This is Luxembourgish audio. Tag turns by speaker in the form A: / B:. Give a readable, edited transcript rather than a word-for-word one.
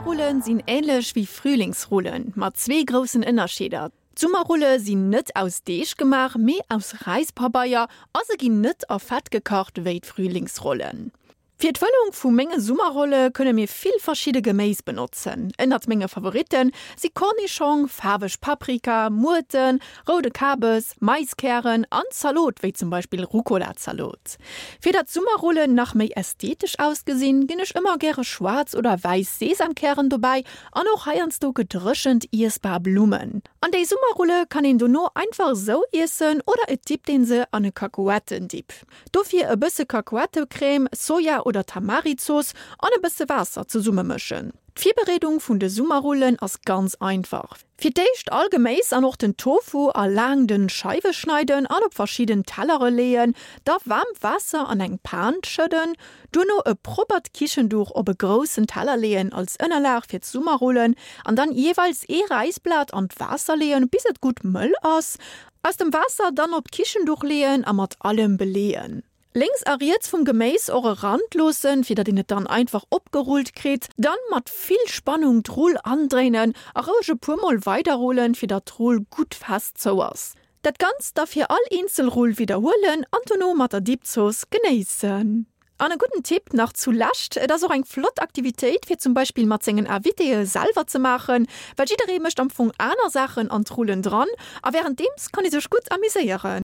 A: Summerrullen sinn änlech wéi Frühlingsrullen, mat zwee groussen Ënnerscheeder, D'Summerrulle sinn net aus Deeg gemaach, mee aus Räispabeier a se ginn net a Fett gekacht wéi d'Frühlingsrollen. Fir d'Fëllung vu menge Summerrolle kënne mir vill verschidde Geméis benotzen. Ënnert menge Favoritte si Kornischong, faarweg Paprika, Muerten, roude Kabes, Maiskären an Zalot wéi zum Beispill Rucola-Zalot. Fir datt d'Summerrollen nach méi ästhetesch ausgesinn, ginn ech ëmmer gäre schwaarz oder wäiss Sesamkären dobäi an och heiansdo gedréchent iessbar Blummen. An déi Summerrulle kann een dono einfach esou iessen oder et dippt een se an e Kakuettendip. Dofir e bësse Kakuettecrème, Soja oder Tamarizooss an e bësse Waasser zesummemëschen. D'Virbereedung vun de Summerrullen ass ganz einfach. Fir d'éischt all Geméis an och den Tofu a laang dënn Scheiwe schneiden an op verschidden Tellere leeën. Da waarmt Waasser an eng Pan schëdden. Duerno e proppert Kichenduch op e groussen Teller leeën als Ënnerlag fir d'Summerrullen an dann jeeweils ee Räisblat an d'Waasser leeën bis et gutt mëll ass. Aus dem Waasser dann op d'Kichenduch leeën a mat allem beleeën. Lénks a riets vum Geméis och e Rand loossen, fir datt een et dann einfach opgerullt kritt. Dann mat vill Spannung d'Rull andréinen a roueg e puer mol weiderrullen, fir datt d'Rull gutt fest zou ass. Dat Ganzt da fir all eenzel Rull widderhuelen an dono mat der Dipzooss genéissen. An e gudden Tipp nach zu Lescht, Et ass och eng flott Aktivitéit fir zum Beispill mat sengen Invitéë selwer ze maachen, well jidderee mécht am Fong aner Saachen an d'Rullen dran a wärenddeems kann ee sech gutt amuséieren.